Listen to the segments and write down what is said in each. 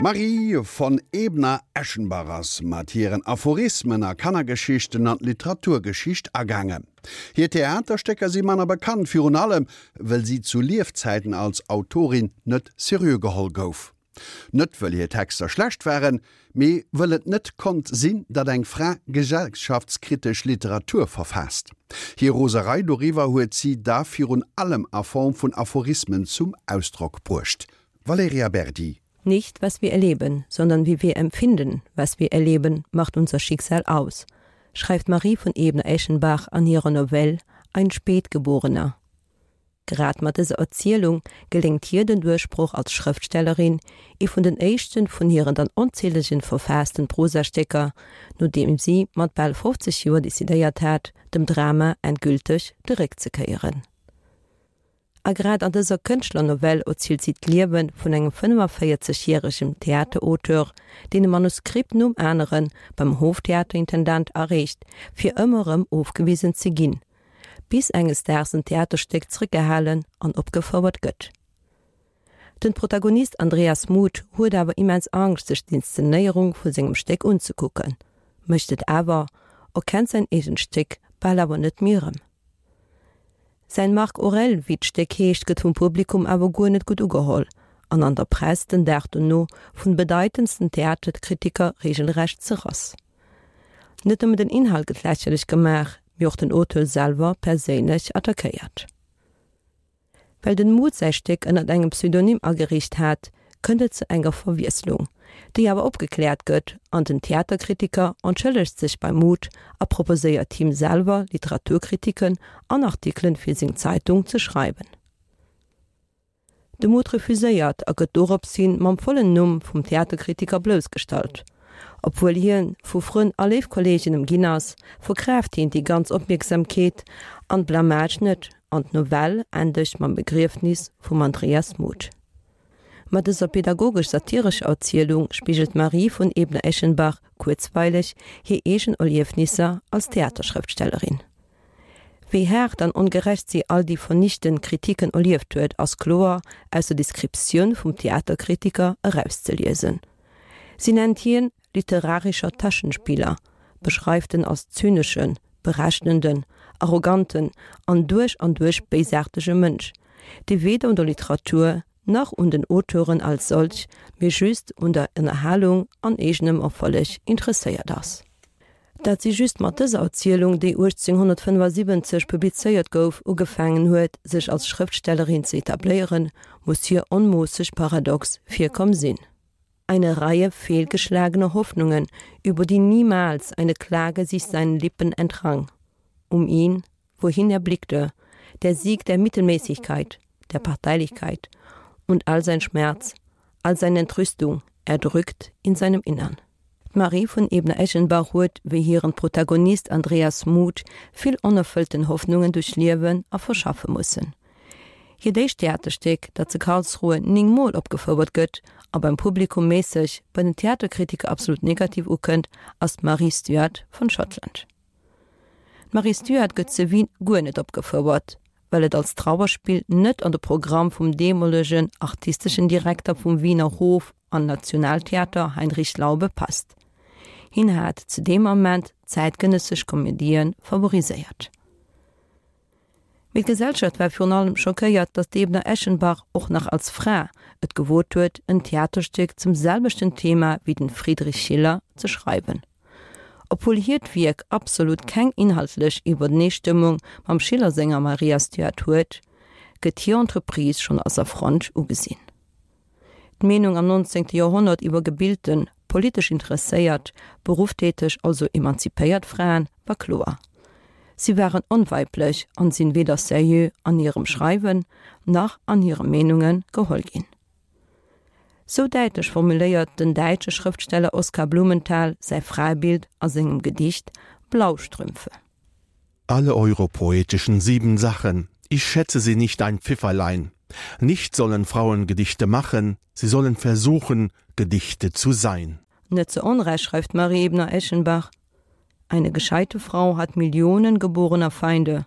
D'Marie von Ebner-Eschenbach ass mat hiren Aphorismen a Kannergeschichten an d'Literaturgeschicht agaangen. Hir Theaterstécker si manner bekannt, virun allem wëll si zu Liefzäiten als Autorin net seriö geholl gouf. Net wëll hir Texter schlecht waren, mee wëll et net konnt sinn, datt eng Fra gesellschaftskritesch Literatur verfaasst. Hir Roserei doriwwer huet si da virun allem a Form vun Aphorismen zum Ausdrock bruecht. Valerija Berdi. Nicht, was wir erleben, sondern wie wir empfinden, was wir erleben, macht unser Schicksal aus, schreift Marie von Ebner-Eschenbach an hirer Novelle Ein Spätgeborener. Grad mat dëser Erzielung geléngt hir den Duerchbroch als Schrëftstellerin, ee vun den éischten vun hiren dann onzählegen verfaassten Prosastécker, nodeem si mat bal 50 Joer decidéiert hat, dem Drama endgülteg de Réck ze kéieren. A grad an dëser Kënschtlernovell erzielt si d'Liewe vun engem 45 järegem Theaterauteur, deen e Manuskript nom anere beim Hoftheaterintendant areecht, fir ëmmer erëm ofgewisen ze ginn, bis enges Daags en Theaterstéck zréckgehalen an opgefouert gëtt. Den Protagonist Andreas Muth huet awer immens Angscht sech d'Inszenéierung vu sengem Stéck unzekucken, mécht et awer, erkennt säin eegent Stéck bal awer net méi erëm. Säin Marc Aurel, wéi d'Stéck heescht, gëtt vum Publikum awer guer net gutt ugeholl an an der Press den Dag dono vun bedeitendsten Theaterkritiker regelrecht zerrass. Net nëmmen den Inhalt gëtt lächerlech gemaach, mee och den Auteur selwer perséinlech attackéiert. Well den Muth säi Stéck ënnert engem Pseudonym ageriicht hat, kënnt et zu enger Verwiesslung, déi awer opgekläert gëtt an den Theaterkritiker entschëllegt sech beim Muth a proposéiert him selwer Literaturkritiken an Artikelen fir seng Zeitung ze schreiwen. De Muth refuséiert a gëtt dorops hin mam vollen Numm vum Theaterkritiker bloussgestallt. Obwuel hien vu Frënn a léif Kolleegen ëmginn ass, verkraaft hien déi ganz Opmierksamkeet an d'Blamage net an d'Novell endegt mam Begriefnis vum Andreas Muth. Mat dëser pedagogesch-satirescher Erzielung spigelt d'Marie von Ebner-Eschenbach kuerzweileg hir eegen Erliefnisser als Theaterschrëftstellerin. Wéi haart an ongerecht si all déi vernichtend Kritiken erlieft huet, ass kloer aus der Descriptioun vum Theaterkritiker erauszeliesen. Si nennt hien literarischer Taschenspieler, beschreift en als zyneschen, berechnenden, arroganten an duerch an duerch béisaartege Mënsch, dee weder un der Literatur nach un den Auteuren als solch, mee just un der Ënnerhalung an eegenem Erfolleg interesséiert ass. Dat si just mat dëser Erzielung, déi 1875 publizéiert gouf, ugefaangen huet, sech als Schrëftstellerin ze etabléieren, muss hir onmoosseg paradox virkomm sinn. Eine Reihe fehlgeschlagener Hoffnungen, über die niemals eine Klage sich seinen Lippen entrang. Um ihn, wohin er blickte, der Sieg der Mittelmäßigkeit, der Parteilichkeit und all sein Schmerz, all seine Entrüstung erdrückt in seinem Innern. D'Marie von Ebner-Eschenbach huet, wéi hiren Protagonist Andreas Muth, vill onerfëllten Hoffnungen duerchliewen a verschaffe mussen. Hiert éischt Theaterstéck, dat zu Karlsruhe 9 Mol opgefouert gëtt a beim Publikum méisseg, bei den Theaterkritiker absolut negativ ukënnt, ass d'Marie Stuart von Schottland. D'Marie Stuart gëtt zu Wien guer net opgefouert, well et als Trauerspill net an de Programm vum deemolegen artisteschen Direkter vum Wiener Hof an Nationaltheater Heinrich Laube passt. Hien hat zu deem Ament zäitgenëssesch Komedie favoriséiert. Mee d'Gesellschaft war virun allem schockéiert, datt d'Ebner-Eschenbach och nach als Fra et gewot huet, en Theaterstéck zum selwechten Thema wéi den Friedrich Schiller ze schreiwen. Obwuel hiert Wierk absolut keng inhaltlech Iwwerneestëmmung mam Schiller senger Maria Stuart huet, gëtt hir Entreprise schonn als Affront ugesinn. D'Meenung am 19. Joerhonnert iwwer gebilten, politesch interesséiert, berufftäteg, also emanzipéiert Fraen war kloer, Si waren onweiblech an sinn weder seriö an hirem Schreiwen nach an hire Meenunge geholl ginn. Sou däitlech formuléiert den däitsche Schrëftsteller Oskar Blumenthal säi Fraebild a sengem Gedicht Blaustrümpfe. Alle europoetischen Siebensachen, ich schätze sie nicht ein Pfifferlein. Nicht sollen Frauen Gedichte machen, sie sollen versuchen, Gedichte zu sein. Net zu Onrecht schreift Marie Ebner-Eschenbach: Eine gescheite Frau hat Millionen geborener Feinde,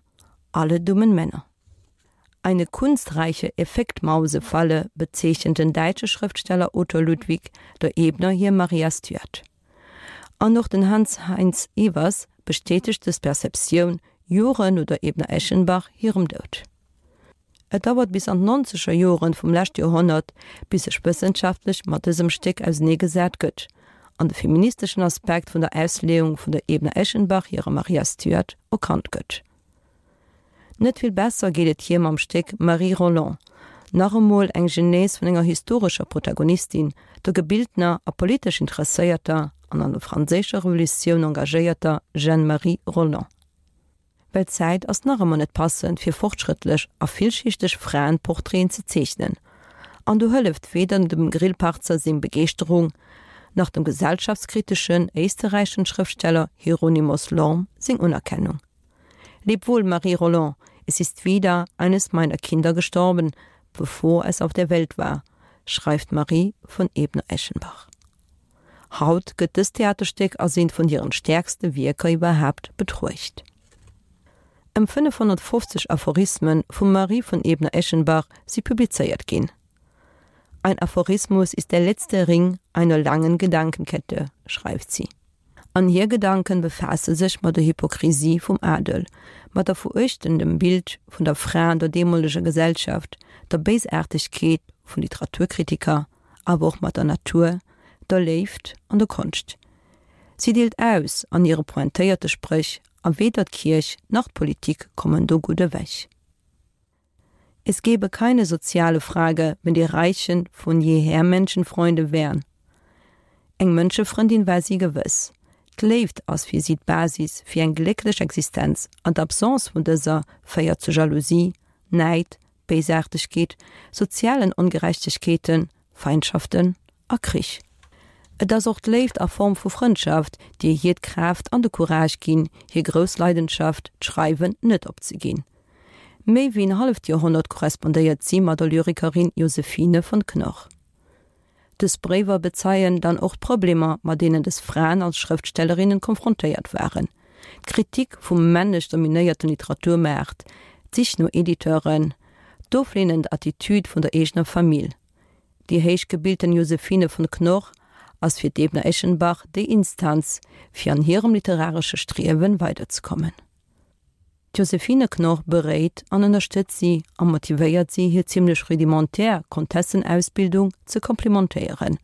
alle dummen Männer. Eine kunstreiche Effektmausefalle bezeechent den däitsche Schrëftsteller Otto Ludwig der Ebner hir Maria Stuart. An och den Hans Heinz Ewers bestätegt dës Perceptioun Joren no der Ebner-Eschenbach hirem Doud. Et dauert bis an d'nonzeger Joren vum leschte Joerhonnert, bis sech wëssenschaftlech mat dësem Stéck auseneegesat gëtt an de feministeschen Aspekt vun der Ausleeung vun der Ebner-Eschenbach hirer Maria Stuart erkannt gëtt. Net vill besser geet et hir mam Stéck Marie Roland, nach emol eng Genèse vun enger historescher Protagonistin, der gebiltener a politesch interesséierter an an der franséischer Revolutioun engagéierter Jeanne-Marie Roland. Well d'Zäit ass nach ëmmer net passend fir fortschrëttlech a villschichteg Fraenportraiten ze zeechnen. An do hëlleft weder dem Grillparzer seng Begeeschterung, nach dem gesellschaftskriteschen éisterräichen Schrëftsteller Hieronymus Lorm seng Unerkennung. Leb wohl, Marie Roland, es ist wieder eines meiner Kinder gestorben, bevor es auf der Welt war, schreift Marie von Ebner-Eschenbach. Haut gëtt dëst Theaterstéck als eent vun hiren stäerkste Wierker iwwerhaapt betruecht. Ëm 550 Aphorisme vum Marie von Ebner-Eschenbach si publizéiert ginn. Ein Aphorismus ist der letzte Ring einer langen Gedankenkette, schreift si. An hir Gedanken befaasse sech mat der Hypokrisie vum Adel, mat der veruechtendem Bild vun der Fra an der deemoleger Gesellschaft, der Béisaartegkeet vun Literaturkritiker, awer och mat der Natur, der Léift an der Konscht. Si deelt aus an hire pointéierte Spréch, a weder d'Kierch nach d'Politik kommen do gutt ewech. Es gäbe keine soziale Frage, wenn die Reichen von jeher Menschenfreunde wären. Eng Mënschefrëndin war si gewëss. D'Léift ass fir si d'Basis fir eng glécklech Existenz an d'Absence vun dëser féiert zu Jalousie, Näid, Béisaartegkeet, sozialen Ongerechtegkeeten, Feindschaften a Krich. Et ass och d'Léift a Form vu Frëndschaft, déi hir d'Kraaft an de Courage ginn, hir grouss Leidenschaft, d'Schreiwen, net opzeginn. Méi wéi en halleft Joerhonnert korrespondéiert si mat der Lyrikerin Josephine von Knorr. Dës Bréiwer bezeien dann och d'Problemer, mat deenen dës Fraen als Schrëftstellerinnen konfrontéiert waren, d'Kritik vum männlech dominéierten Literaturmaart, d'Sich no Editeuren, d'ofleenend Attitüd vun der eegener Famill. Déi héich gebilten Josephine von Knorr ass fir d'Ebner-Eschenbach déi Instanz, fir an hirem literaresche Striewen weiderzekommen. D'Josephine Knorr beréit an ënnerstëtzt si a motivéiert si, hir zimmlech rudimentär Kontessenausbildung ze komplimentéieren.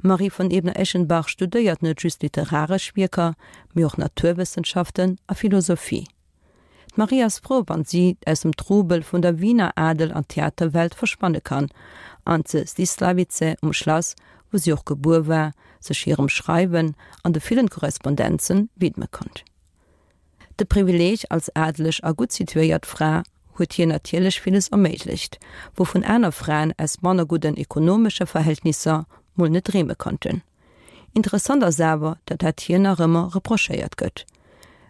D'Marie von Ebner-Eschenbach studéiert net just literaresch Wierker, mee och Naturwëssenschaften a Philosophie. D'Marie ass frou, wann si aus dem Trubel vun der Wiener Adel an Theaterwelt verschwanne kann an ze Zdislavice um Schlass, wou si och gebuer war, sech hirem Schreiwen an de villen Korrespondenzen widme konnt. De Privileeg als adeleg a gutt situéiert Fra huet hir natierlech villes erméiglecht, wouvun aner Fraen aus manner gudden ekonomesche Verhältnisser mol net dreeme konnten. Interessant ass awer, datt dat hir nach ëmmer reprochéiert gëtt.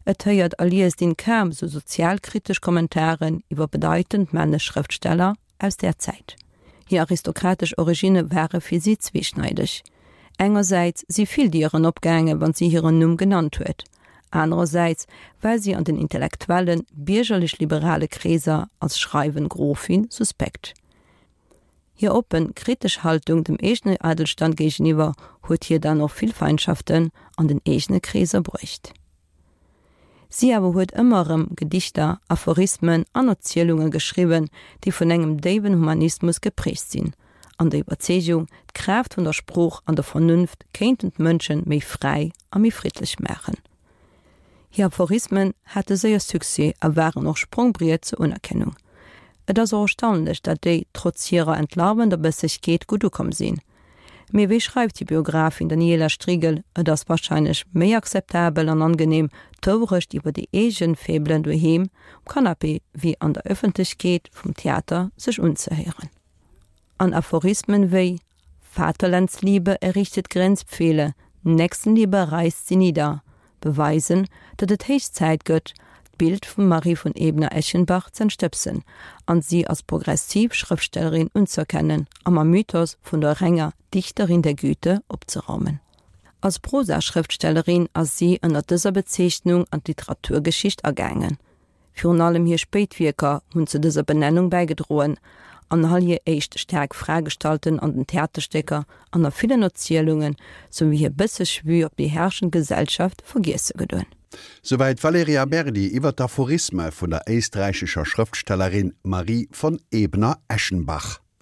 Et héiert a liest een kaum sou sozialkritesch Kommentaren iwwer bedeitend männlech Schrëftsteller aus där Zäit. Hir aristokratesch Originne ware fir si zweeschneideg. Engersäits si vill Dieren opgaange wann si hiren Numm genannt huet, anerersäits war si an den intellektuellen, biergerlech-liberale Kreeser als schreiwend Grofin suspekt. Hir oppen, kritesch Haltung dem eegene Adelstand géigeniwwer huet hir dann och vill Feindschaften an den eegene Kreeser bruecht. Si awer huet ëmmer erëm Gedichter, Aphorismen an Erzielunge geschriwwen, déi vun engem déiwen Humanismus geprägt sinn, an der Iwwerzeegung, d'Kraaft vun der Sprooch an der Vernunft kéinten d'Mënsche méi fräi a méi friddlech maachen. Hir Aphorismen hate séier Succès a waren och Sprongbriet zur Unerkennung. Et ass och erstaunlech, dat déi, trotz hirer entlarvender Bëssegkeet, gutt ukomm sinn. Mee wéi schreift déi Biografin Daniela Strigel, et ass warscheinlech méi akzeptabel an angenehm, d'Wourecht iwwer déi eegen Faiblën doheem um Canapé wéi an der Ëffentlechkeet vum Theater sech unzehéieren. An Aphorismen wéi Vaterlandsliebe errichtet Grenzpfähle, Nächstenliebe reißt sie nieder beweisen, datt et héich Zäit gëtt, d'Bild vum Marie von Ebner-Eschenbach z'entstëbsen an si als progressiv Schrëftstellerin unzëerkennen a mam Mythos vun der renger Dichterin der Güte opzeraumen. Als Prosaschrëftstellerin ass si ënner dëser Bezeechnung an d'Literaturgeschicht agaangen. Virun allem hir spéit Wierker hunn zu dëser Benennung bäigedroen, an all hir éischt staark Fraegestalten an den Theaterstécker an a villen Erzielunge souwéi hir bësseg Vue op déi herrschend Gesellschaft vergiesse gedoen. Souwäit d'Valerija Berdi iwwer d'Aphorisme vun der éisträichescher Schrëftstellerin Marie von Ebner-Eschenbach.